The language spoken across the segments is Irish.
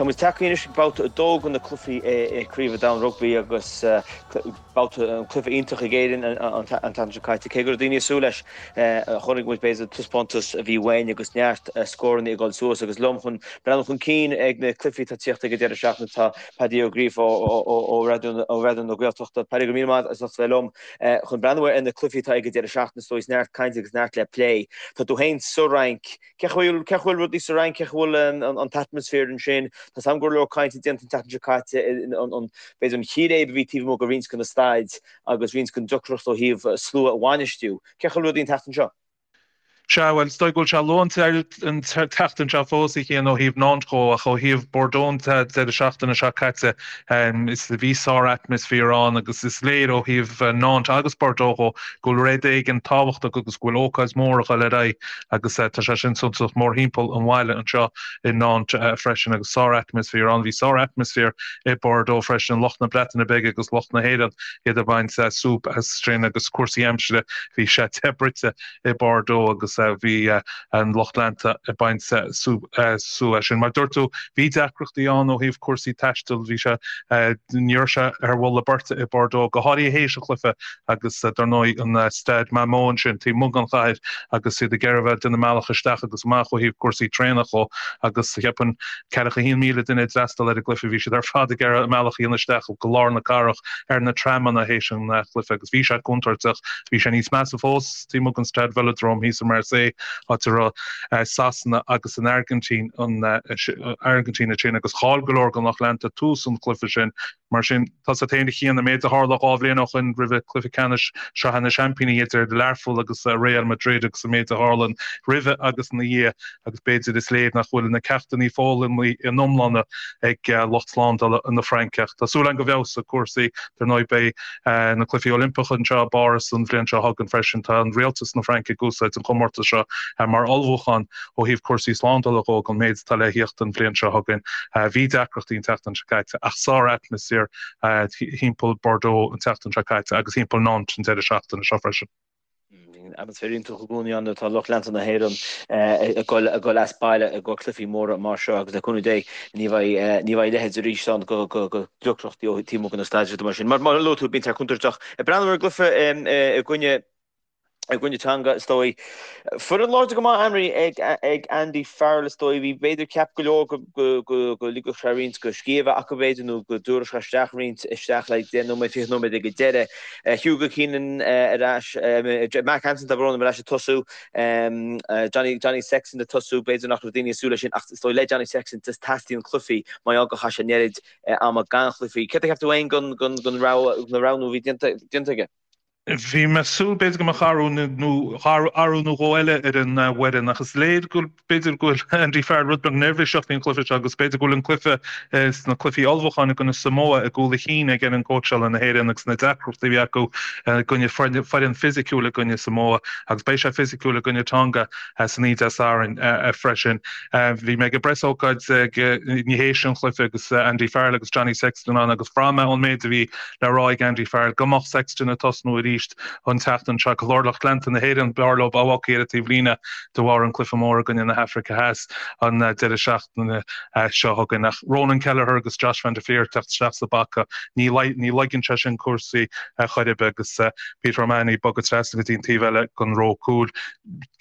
Tá muid tagtha anois ag babhta 2 de na cluichí i Craobh an Domhain Rugbaí agus babhta an cluiche iontach ag Éirinn an tseachtain seo caite. Cé go raibh daoine ag súil leis, chonaic muid b'fhéidir taispeántas a bhí uainn agus neart scóranna ag dul suas agus liom chun breathnú chun cinn ag na cluichí atá ag tíocht ag an deireadh seachtaine tá Paddy Ó Gríofa ó Raidió na Gaeltachta. Paddy, go raibh míle maith as ucht bheith liom chun breathnú ar na cluichí atá ag an deireadh seachtaine is dóigh neart cainte agus neart le plé. Tá tú féin sa Fhrainc. Cén chaoi a bhfuil rudaí sa Fhrainc, cén chaoi a bhfuil an t-atmaisféar ansin? Tá 's agam go raibh go leor cainte déanta an tseachtain seo caite, b'fhéidir an chíréib a bhí taobh amuigh de roinnt de na staid agus roinnt den deacracht ó thaobh slua a bhainistiú. Cén chaoi a bhfuil rudaí an tseachtain seo? Sea, bhuel, is dóigh go bhfuil sé luath an tseachtain seo fós, a Chian, ó thaobh Nantes dhó, ach ó thaobh Bordeaux an deireadh seachtaine seo caite, is bhí sár-atmaisféar ann agus is léir ó thaobh Nantes agus Bordeaux dhó go bhfuil rud éigin tábhachtach agus go bhfuil ócáid mhór ag dul ar aghaidh agus tá sé sin suntasach mórthimpeall an bhaile anseo i Nantes freisin agus sár-atmaisféar ann. Bhí sár-atmaisféar i Bordeaux freisin, lucht na Breataine Bige agus lucht na hÉireann, iad ag baint súp as sin agus cúrsaí aimsire, bhí sé te bruite i Bordeaux agus bhí an lucht leanta ag baint súp as sin. Mar dúirt tú, bhí deacrachtaí ann ó thaobh cúrsaí taistil, bhí sé, ní raibh sé ar bhulla beirte i Bordeaux, go háirithe théis an chluiche agus dar ndóigh an Stade Matmut ansin taobh amuigh den chathair agus iad ag iarraidh a bheith ag déanamh a mbealach isteach agus amach ó thaobh cúrsaí traenach dhó agus cheapfainn ceathracha 1,000 duine a d'fhreastail ar an gcluiche, bhí siad ar fad ag iarraidh a mbealach a dhéanamh isteach go lár na cathrach ar na tramanna théis an chluiche agus bhí sé contúirteach. Bhí sé níos measa fós taobh amuigh den Stade Velodrome thíos i Marseille áit a raibh Sasana agus an Airgintín an Airgintín ansin agus chaill go leor den lucht leanta tús an chluiche sin. Mar sin, tá 's agat féin a Chian, an méid a tharla 2 bhliain ó shoin roimhe cluiche ceannais Sraithe na Seaimpíní idir Learpholl agus Real Madrid agus an méid a tharla roimhe agus ina dhiaidh agus b'fhéidir is léir nach bhfuil na ceachtanna foghlamtha ina n-iomláine ag lucht slándála na Fraince. Ach tá súil againn go bhfeabhsóidh cúrsaí. Dar ndóigh beidh na Cluichí Oilimpeacha anseo i bPáras an bhliain seo chugainn freisin. Tá an rialtas na Fraince ag úsáid an chomórtas seo mar ullmhúchán Ó thaobh cúrsaí slándála dhó don méid atá le thíocht an bhliain seo chugainn, bhí deacrachtaí an tseachtain seo caite ach sár-atmaisféar thimpeall Bordeaux an tseachtain seo caite agus thimpeall Nantes an deireadh seachtaine seo freisin. Bíonn atmaisféar iontach i gcónaí ann nuair atá lucht leanta na hÉireann ag dul as baile i gcomhair cluichí móra mar seo agus le cúnamh Dé ní bheidh a leithéid arís ann de dheacrachtaí ó taobh amuigh de na staid mar sin. Mar a luaigh tú, bíonn sé contúirteach. Ag breathnú ar an gcluiche i gcoinne i gcoinne Tonga, is dóigh. Foireann láidir go maith ainmnithe ag Andy Farrell, is dóigh. Bhí, b'fhéidir, ceap go leor go ligfeadh sé roinnt de scíth a bheith acu, b'fhéidir, nó go dtabharfadh sé isteach roinnt isteach le 10 nóiméad, 20 nóiméad ag an deireadh. Hugo Keenan ar ais, Mark Hansen, tá brón orm, ar ais ag tosú. Johnny, Johnny Sexton ag tosú, b'fhéidir nach raibh daoine ag súil leis sin, ach is dóigh le Johnny Sexton, teastaíonn cluichí, mar gheall gur chaith sé an oiread ama gan chluichí. Céard a cheap tú féin den roghnú a bhí déanta aige? Bhí mé ag súil b'fhéidir go mbeadh athrú nó athrú nó dhó eile ar an bhfoireann ach is léir go b'fhéidir go bhfuil Andy Farrell rud beag neirbhíseach faoin chluiche seo agus b'fhéidir go bhfuil an cluiche sna cluichí ullmhúcháin i gcoinne Samoa i gcúl a chinn ag fhoireann cóitseála na hÉireann agus na deacrachtaí a bhí acu i gcoinne foireann fisiciúil i gcoinne Samoa agus beidh sé fisiciúil i gcoinne Tonga san oíche Dé Sathairn freisin. Bhí mé ag an bpreasócáid théis an chluiche agus Andy Farrell agus Johnny Sexton ann agus bhraith mé ón méid a bhí le rá ag Andy Farrell go mbeadh Sexton ag tosnú arís an tseachtain seo. Go leor lucht leanta na hÉireann, b'fhearr leo a bheith ar an taobhlíne de bharr an cluiche mór i gcoinne na hAfraice Theas an deireadh seachtaine seo chugainn. Ach Ronan Kelleher agus Josh van der Flier ag teacht isteach sa bpaca, ní laigíonn sé sin cúrsaí chor ar bith agus Peter O'Mahony ag bogadh trasna go dtí an taobh eile den ró cúil.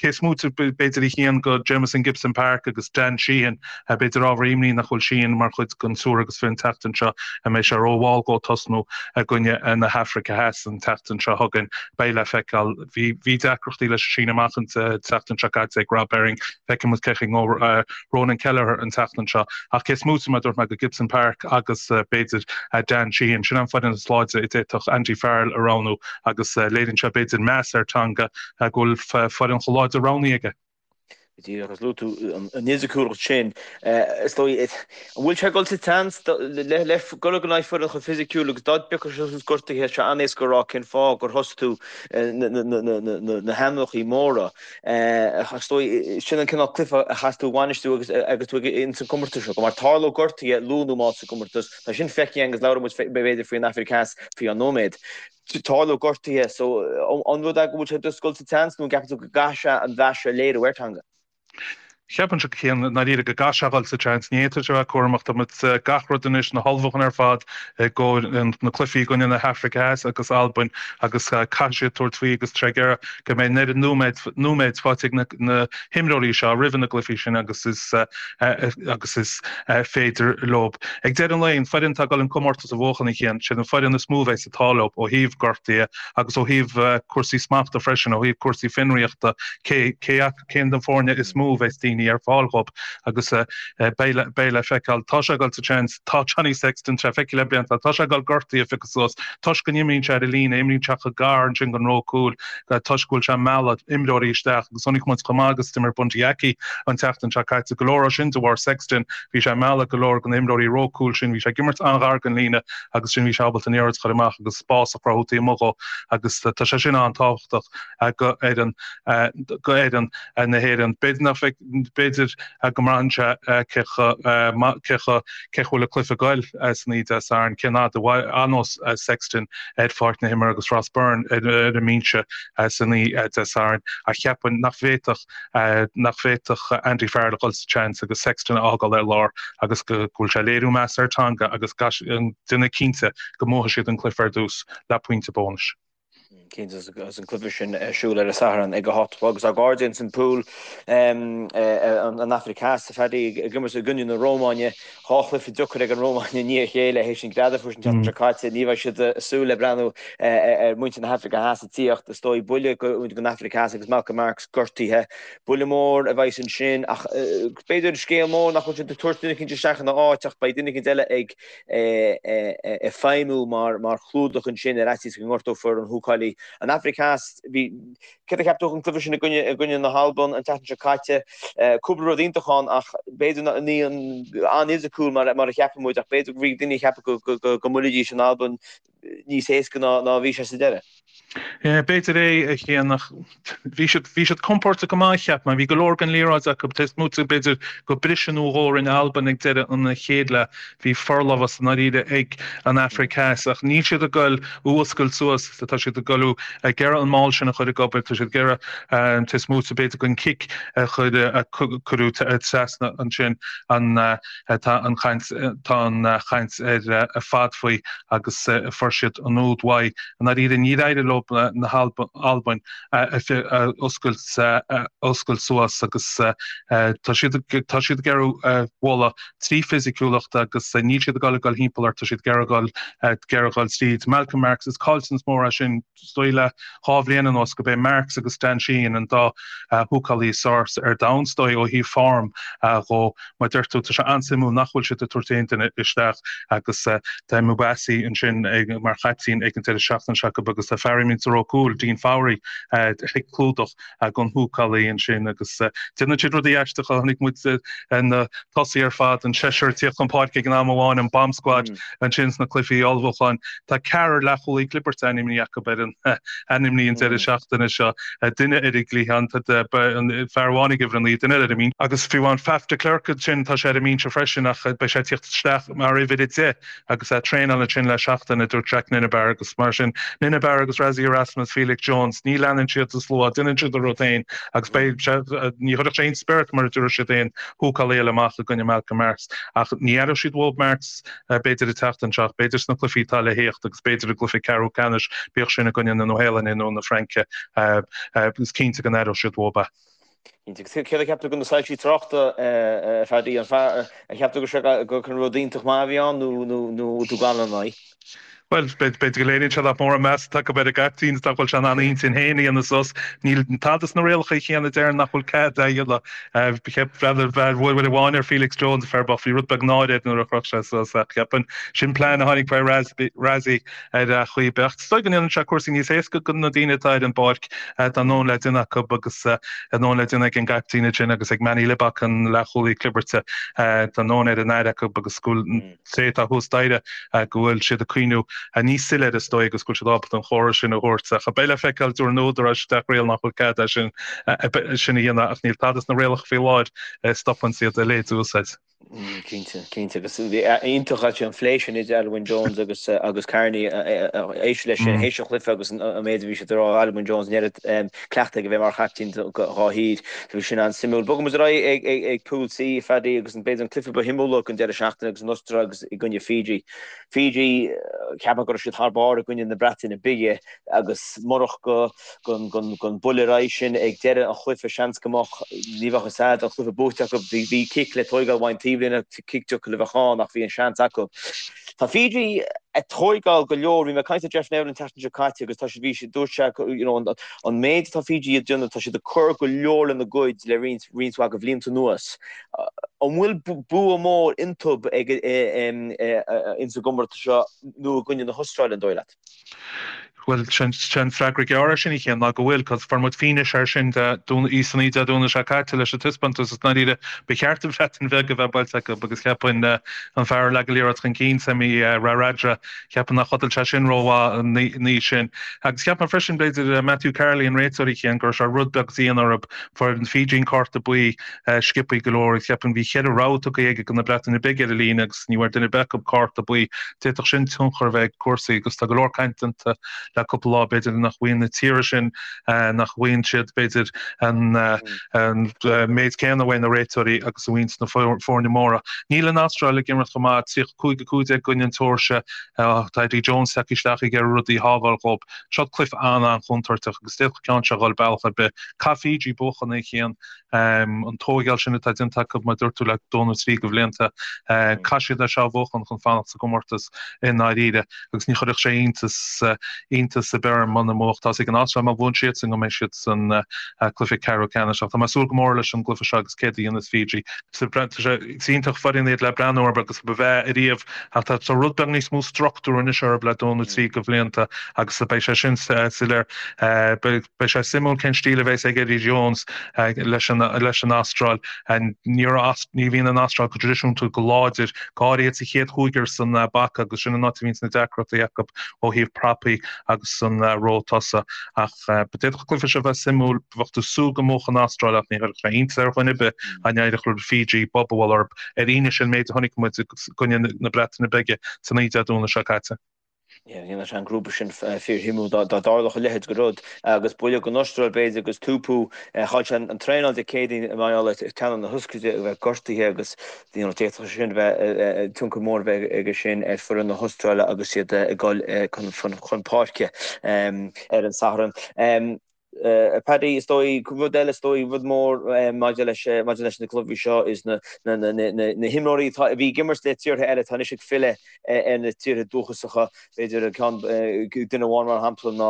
Cé is móite b'fhéidir a Chian de Jamison Gibson Park agus Dan Sheehan, b'fhéidir ábhar imní nach bhfuil Sheehan mar chuid den triúr agus fiche an tseachtain seo, an mbeidh sé rómhall dhó tosnú i gcoinne na hAfraice Theas an tseachtain seo chugainn? Beidh le feiceáil. Bhí deacrachtaí leis an síneadh amach an tseachtain seo caite ag Rob Herring. Feicfidh muid cén chaoi a ngabhfaidh Ronan Kelleher an tseachtain seo. Ach cé is móite mar a dúirt mé de Gibson Park agus b'fhéidir Dan Sheehan, sin an foireann is láidre a d'fhéadfadh Andy Farrell a roghnú agus léiríonn sé b'fhéidir meas ar Tonga go bhfuil foireann chomh láidir roghnaithe aige. Go díreach, agus luaigh tú an fhisiciúlacht sin, is dóigh, an bhfuil sé ag dul sa tseans le dul in aghaidh foireann chomh fisiciúil agus dá dtiocfadh sé suas gortaithe, tá sé an-éasca a rá cén fáth gur thosaigh tú na hainmneacha móra. Is dóigh, sin an cineál cluiche a chaithfeas tú a bhainistiú agus tú ins an gcomórtas seo, mar tarlóidh gortuithe luath nó mall sa gcomórtas, tá sin feicthe againn agus labhróidh muid b'fhéidir faoin Afraic Theas faoi cheann nóiméad. Tarlóidh gortuithe, so an rud é go bhfuil sé just ag dul sa tseans nó an gceapann tú go gcaithfidh sé an mheas a léiriú ar Tonga? Cheapfainnse a Chian i ndáiríre go gcaithfidh sé a dhul sa tseans. Ní fhéadfadh sé a bheith cúramach. Tá muid gach rud anois, na hullmhúcháin ar fad i gcomhair na cluichí i gcoinne na hAfraice Theas agus Albain agus caithfidh siad tabhairt faoi agus tá sé ag iarraidh go mbeidh an oiread nóiméad nóiméid faighte ag na himreoirí seo roimhe na gcluichí sin agus is agus is féidir leo. Ag deireadh an lae, an foireann atá ag dul an comórtas a bhuachan a Chian, siad an foireann is mó a bheidh an t-ádh leo ó thaobh gortaithe agus ó thaobh cúrsaí smachta freisin, ó thaobh cúrsaí fionraíochta, cé cé cén den foirne is mó a bheas daoine ar fáil dhób agus beidh beidh le feiceáil. Tá sé ag dul sa tseans, tá Johnny Sexton, tá feicthe le blianta, tá sé ag dul gortaithe a phiocadh suas toisc go n-imríonn sé ar an líne, imríonn sé chomh gar ansin don ró cúil toisc go bhfuil sé ag mealladh imreoirí isteach agus chonaic muid chomh maith agus d'imir Bundee Aki an tseachtain seo caite, go leor ó sin de bharr Sexton, bhí sé ag mealladh go leor de na himreoirí ró cúil sin, bhí sé ag imirt an-ghar don líne agus sin bhí sé ábalta an liathróid a chur amach agus spás a chruthú taobh amuigh dhó agus tá sé sin an-tábhachtach go fhoireann go fhoireann na hÉireann. B'fhéidir nach bhfeic, b'fhéidir go mbraitheann sé cé chomh cé chomh cé chomh bhfuil an cluiche ag goil san oíche Dé Sathairn, cén fhad a fhanós Sexton ar pháirc na himeartha agus Ross Byrne ar an mbinse san oíche Dé Sathairn ach cheapfainn nach bhféadfadh nach bhféadfadh Andy Farrell a dhul sa tseans agus Sexton a fhágáil ar lár agus go bhfuil sé ag léiriú meas ar Tonga agus déanamh cinnte go mbuafaidh siad an cluiche ar dtús le pointe bónais. Cinnte agus an cluiche sin ar siúl ar an Satharn ag a 8 a chlog agus ár gcairde ins an pool an Afraic Theas a Phaddy ag imirt i gcoinne na Rómáine. 2 chluiche deacair ag an Rómáin i ndiaidh a chéile théis an greadadh a fuair siad an tseachtain seo caite. Ní bheidh siad ag súil le breathnú ar mhuintir na hAfraice Theas ag tíocht. Is dóigh buille don Afraic Theas agus Malcolm Marx gortaithe. Buille mór a bheas ansin ach b'fhéidir scéal mór nach bhfuil siad ag tabhairt duine eicínt isteach ina áit ach beidh duine eicínt eile ag ag feidhmiú mar chlúdach ansin ar fhaitíos go ngortófar an húcálaí. An Afraic Theas, bhí, céard a cheap tú den cluiche sin i gcoinne, i gcoinne na hAlban an tseachtain seo caite? Cúpla rud iontach ann ach b'fhéidir ní an-fhisiciúil mar mar a cheapann muid ach b'fhéidir go bhí daoine ag ceapadh go go go go mbuailfidís an Albain níos éasca ná ná a bhí sé sa deireadh. B'fhéidir é, a Chian, ach bhí siad, bhí siad compordach go maith, cheap mé. Bhí go leor den liathróid acu. Taobh amuigh de b'fhéidir go briseadh nó dhó a rinne Albain ag deireadh an chéad leath, bhí forlámhas i ndáiríre ag an Afraic Theas. Ach níl siad ag goil a fhuascailt suas, tá siad ag goil ag iarraidh an maul sin a chur ag obair, tá siad ag iarraidh taobh amuigh de b'fhéidir den cic a chuir, a cuireadh trasna ansin an, Tá an chaint tá an chaint ar fad faoi agus fuair siad an úd uaidh. I ndáiríre níor éirigh leo na hAlbain a oscailt a oscailt suas agus tá siad tá siad ag iarraidh bualadh trí fisiciúlacht agus níl siad ag dul ag dul thimpeall ort, tá siad ag iarraidh dul ag iarraidh dul tríd. Malcolm Marx, is caillteanas mór é sin. Is dóigh le 2 bhliain anuas go b'é Marx agus Dan Sheehan an dá húcálaí is fearr ar domhan, is dóigh, ó thaobh form dhó. Mar a deir tú, tá sé an-suimiúil nach bhfuil siad ag tabhairt aon duine isteach agus tá Mabasa ansin mar chaiptín ag an deireadh seachtaine seo acu agus tá fear a imríonn sa ró cúil, Dean Fourie, ag clúdach don húcálaí ansin agus déanann siad rudaí aisteacha. Chonaic muid na tosaithe ar fad, an seisear ag tíocht chun páirce ag an am amháin, an bomb squad ansin sna cluichí ullmhúcháin. Tá ceathrar leathchúlaí clibirte ainmnithe acu ar an ainmnithe an deireadh seachtaine seo, duine ar an gcliathán, tá fear amháin ag uimhir 9, duine eile ar an mbinse. Agus fiú amháin Faf de Klerk ansin, tá sé ar an mbinse freisin ach beidh sé ag tíocht isteach mar uimhir 10. Agus é ag traenáil ansin le seachtain, a dúirt Jacques Nienaber, agus mar sin, Nienaber agus Rassie Erasmus, Felix Jones, ní leanann siad an slua, déanann siad a rud féin agus beidh sé, ní chuirfeadh sé aon spiorad mar a dúirt siad aon húcálaí eile amach i gcoinne Malcolm Marx. Ach ní aireoidh siad uathu Marx b'fhéidir an tseachtain seo, b'fhéidir sna cluichí atá le thíocht agus b'fhéidir i gcluiche ceathrú ceannais, bíodh sin i gcoinne na Nua-Shéalainne nó na Fraince, is cinnte go n-aireoidh siad uathu é. Cinnte. Céard a cheap tú de na soilsí tráchta, a Phaddy? An cheap tú go raibh sé gur rud iontach maith a bhí ann nó tú gan ina aghaidh? Bhuel, b'fhéidir go léiríonn sé nach mór an meas atá acu ar an gcaiptín is nach bhfuil sé in ann a intinn féin a dhéanamh suas. Níl tada sna rialacha chéanna a deireann nach bhfuil cead é a dhéanamh. Cheap uair amháin ar Felix Jones, fear bocht, bhí rud beag náire air nuair a chroch sé suas ach cheapfainn sin plean a tháinig faoi Rassie ar chaoi ar bith. Is dóigh go ndéanann sé cúrsaí níos éasca do na daoine atá ar an bpáirc. Tá a ndóthain le déanamh acu agus a ndóthain le déanamh ag an gcaiptín ansin agus ag Manie Libbok, an leathchúlaí clibirte. Tá a ndóthain ar an aire acu agus go bhfuil an té atá thuas staighre go bhfuil siad ag cuimhniú níos soiléire is dóigh agus go bhfuil siad ábalta an chomhartha sin a thabhairt. Ach beidh le feiceáil, dúirt na húdaráis isteach riail nach bhfuil cead é sin a dhéanamh ach níl tada sna rialacha faoi láthair a stopann iad a leithéid a úsáid. Cinnte, cinnte. Agus iontach actually an phlé sin idir Alun Wyn Jones agus agus Carney éist leis sin théis an chluiche agus an méid a bhí siad ag rá Alun Wyn Jones an oiread cleachtaidh aige a bheith mar chaiptín dá thír. So bhí sin an-suimiúil. Bogfaidh muid ar aghaidh ag ag Pool C, Phaddy, agus an b'fhéidir an cluiche ba shuimiúla den deireadh seachtaine agus an Astráil agus i gcoinne Fiji. Fiji, ceapaim go raibh siad thar barr i gcoinne na Breataine Bige agus murach go gon buille ar aghaidh sin ag deireadh an chluiche seans go mbeadh, ní bheadh fhios a'd, an cluiche buaite acu. Bhí cic le tóigeáil uaidh an taobhlíne, cic deacair a bheadh ann ach bhí an seans acu. Tá Fiji ag tóigeáil go leor, bhí mé ag caint le Jeff Neville an tseachtain seo caite agus tá siad, bhí siad, dúirt sé you know an méid atá Fiji ag déanamh, tá siad ag cur go leor lena gcuid le roinnt, roinnt mhaith de bhlianta anuas. An bhfuil bua mór iontu ag ins an gcomórtas seo nó i gcoinne na hAstráile, an dóigh leat? Bhuel, sé an freagra gearr air sin, a Chian, ná go bhfuil, cos fuair muid fianaise air sin san Oíche Dé Domhnaigh seo caite leis an taispeántas is ndáiríre ba cheart an Bhreatain Bheag a bheith buailte acu agus cheapfainn an fear a leag an liathróid chun cinn, Semi Radradra, cheapfainn nár chodail sé sin rómhaith an oíche sin. Agus cheap mé freisin, b'fhéidir, Matthew Carley, an réiteoir, a Chian, go raibh sé rud beag dian orthu, fuair an Fiji an cárta buí sciobthaí go leor. Cheapfainn bhí cheithre rabhadh tugtha aige do na Breataine Bige ar an líne agus ní bhfuair duine ar bith acu cárta buí. D'fhéadfadh sin tionchar a bheith ag cúrsaí agus tá go leor caint déanta le cúpla lá b'fhéidir nach bhfaigheann na tíortha sin, nach bhfaigheann siad b'fhéidir an méid céanna uaidh na réiteoirí agus a bhfaigheann na foirne móra. Níl an Astráil ag imirt chomh maith, 35 15 i gcoinne an tSeoirsia. Tá Eddie Jones tagtha isteach ag iarraidh rudaí a shábháil dhóibh. Seo cluiche an-an-chontúirteach agus d'fhéadfadh ceann seo a dhul bealach ar bith. Caithfidh Fiji buachan a Chian. An tóigeáil sin atá déanta acu, mar a dúirt tú, le dó nó trí de bhlianta, caithfidh siad é seo a bhuachan chun fanacht sa gcomórtas i ndáiríre agus ní chuirfeadh sé iontas iontas ar bith orm muna mbuafadh. Tá's ag an Astráil má bhuann siadsan go mbeidh siad san cluiche ceathrú ceannais. Ach tá mé ag súil go mór leis an gcluiche seo agus céard a dhéanfas Fiji. Tá sé is iontach foireann iad le breathnú orthu agus ba bhreá ariamh ach tá rud beag níos mó struchtúr anois orthu le dó nó trí de bhlianta agus beidh sé sin soiléir. Beidh sé suimiúil cén stíl a bheas ag Eddie Jones leis an Astráil. Ní bhíonn an Astráil go traidisiúnta go láidir, go háirithe sa chéad chúigear san bpaca agus sin an áit a bhíonns na deacrachtaí acu ó thaobh prapaí agus san ró tosaigh. Ach d'fhéadfadh an cluiche seo bheith suimiúil. Bheadh tú ag súil go mbuafadh an Astráil ach ní chuirfeadh sé iontas ar dhuine ar bith dá n-éireodh le Fiji bob a bhualadh orthu ar fhianaise an méid a chonaic muid i gcoinne na Breataine Bige san oíche Dé Domhnaigh seo caite. Dhéanfadh sé an grúpa sin fíorshuimiúil dá dtarlódh a leithéid de rud agus buille don Astráil b'fhéidir agus Tupou chaill sé an traenáil Dé Céadaoin mar gheall ar teannán na hioscaide a bheith gortaithe agus d'fhéadfadh sé sin bheith tionchar mór a bheith aige sin ar foireann na hAstráile agus iad ag dul chun páirce ar an Satharn. Paddy, is dóigh, rud eile is dóigh, rud mór maidir leis, maidir leis na cluichí seo is na, na, na, na, na himreoirí atá, a bhí ag imirt le tíortha eile atá anois ag filleadh ar na tíortha dúchasacha. B'fhéidir ceann, duine amháin mar shampla ná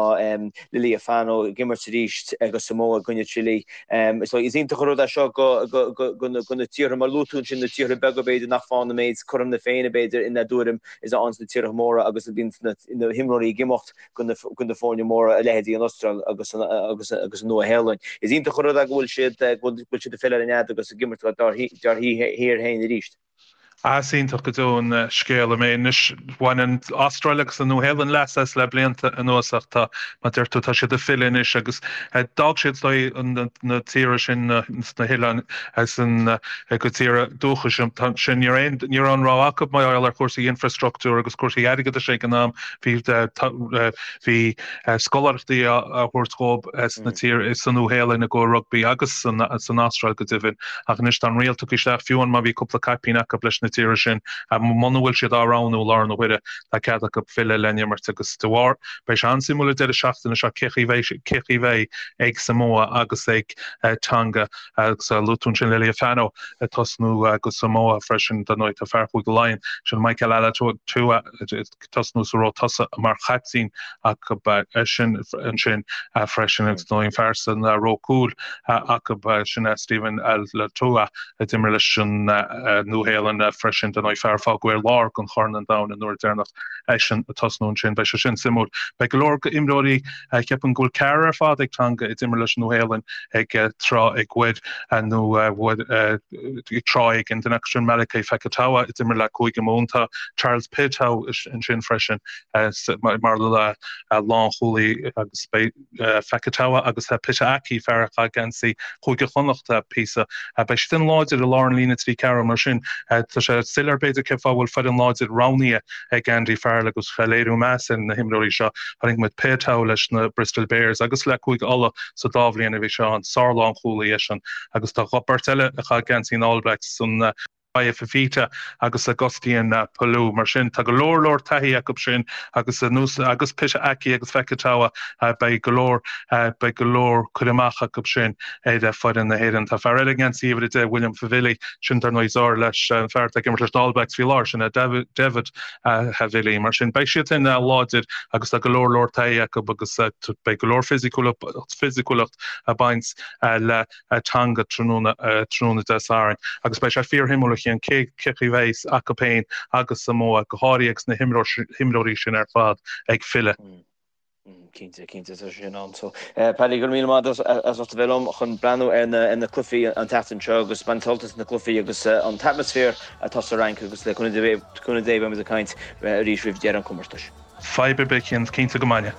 Lealiifano ag imirt arís do Samoa i gcoinne Chile. Is dóigh, is iontach an rud é seo go, go, go, go na, go na tíortha, mar luaigh tú ansin, na tíortha beaga b'fhéidir nach bhfaigheann an méid cothrom na Féinne b'fhéidir ina dtuairim is a fhaigheann na tíortha móra agus a bhíonn na, na himreoirí ag imeacht. go na foirne móra, a leithéidí an Astráil agus an Nua-Shéalainn. Is iontach an rud é go bhfuil siad go bhfuil siad ag filleadh ar an nead agus ag imirt dár thír féin arís. Is iontach go deo an scéal é. Anois, bhain an Astráil agus an Nua-Shéalainn leas as le blianta anuas ach tá, mar a deir tú, tá siad ag filleadh anois agus d'fhág siad is dóigh na tíortha sin sna hoileáin san a gcuid tíortha dúchais sin. Ní raibh aon rogha acu mar gheall ar chúrsaí infreastruchtúir agus cúrsaí airgeadais ag an am. Bhí scoláireachtaí á thabhairt dhóibh sna tír sa Nua-Shéalainn i gcomhair rugbaí agus san Astráil go deimhin. Ach anois tá an riail tugtha isteach, fiú amháin má bhí cúpla caipín acu leis na tíortha sin, muna bhfuil siad á roghnú i láthair na huaire, tá cead acu filleadh le n-imirt agus de bharr, beidh sé an-suimiúil an deireadh seachtaine seo cé chaoi cé chaoi bheidh ag Samoa agus ag Tonga agus luaigh tú ansin Lealiifano ag tosnú do Samoa freisin, dar ndóigh tá fear Chúige Laighean, sin Michael Alaalatoa, ag tosnú sa ró tosaigh mar chaiptín acu sin ansin freisin agus dar ndóigh an fear san ró cúil acu sin Stephen Alaalatoa a d'imir leis an Nua-Shéalainn. freisin, dar ndóigh fear a fágadh ar lár don Chorn an Domhain an uair deireanach eisean ag tosnú ansin. Beidh sé sin suimiúil. Beidh go leor imreoirí, ceapaim go bhfuil ceathrar ar fad ag Tonga a d'imir leis an Nua-Shéalainn ag tráth ag uair nó ag tráth éigin. Duine acu sin Malakai Fekitoa a d'imir le Cúige Mumhan. Tá Charles Piutau ansin freisin mar lánchúlaí agus beidh Fekitoa agus Pita Ahki, fear a chaith geansaí Chúige Chonnacht píosa. Beidh siad an-láidir i lár an líne 3 4 mar sin tá sé soiléir b'fhéidir cén fáth a bhfuil foireann láidir roghnaithe ag Andy Farrell agus léiriú meas ar na himreoirí seo. Chonaic muid Piutau leis na Bristol Bears agus le Cúige Uladh sa dá bhliain a bhí sé ann. Sár-lánchúlaí eisean agus tá beirt eile a chaith geansaí na All Blacks san Vaea Fifita agus Augustine Pulu. Mar sin, tá go leor leor taithí acu sin agus anuas agus Pita Ahki agus Fekitoa, beidh go leor, beidh go leor cur amach acu sin ar foireann na hÉireann. Tá fear eile i ngeansaí uimhir 10, William Havili, sin dar ndóigh deartháir leis an fear atá ag imirt leis na All Blacks faoi láthair, sin é David Havili. Mar sin, beidh siad sin láidir agus tá go leor leor taithí acu agus beidh go leor fisiciúlacht ag baint le Tonga tráthnóna tráthnóna Dé Sathairn agus beidh sé fíorshuimiúil a Chian cé chaoi a bheidh acu féin agus Samoa, go háirithe agus na himreoirí sin ar fad ag filleadh. Cinnte, cinnte, tá sé sin ann. So, Paddy, go raibh míle maith agat as ucht a bheith liom chun breathnú ar na ar na cluichí an tseachtain seo agus baint sult as na cluichí agus an t-atmaisféar atá sa Fhrainc agus le cúnamh Dé beimid ag caint arís roimh dheireadh an chomórtais. Fadhb ar bith, cinnte go mbeidh.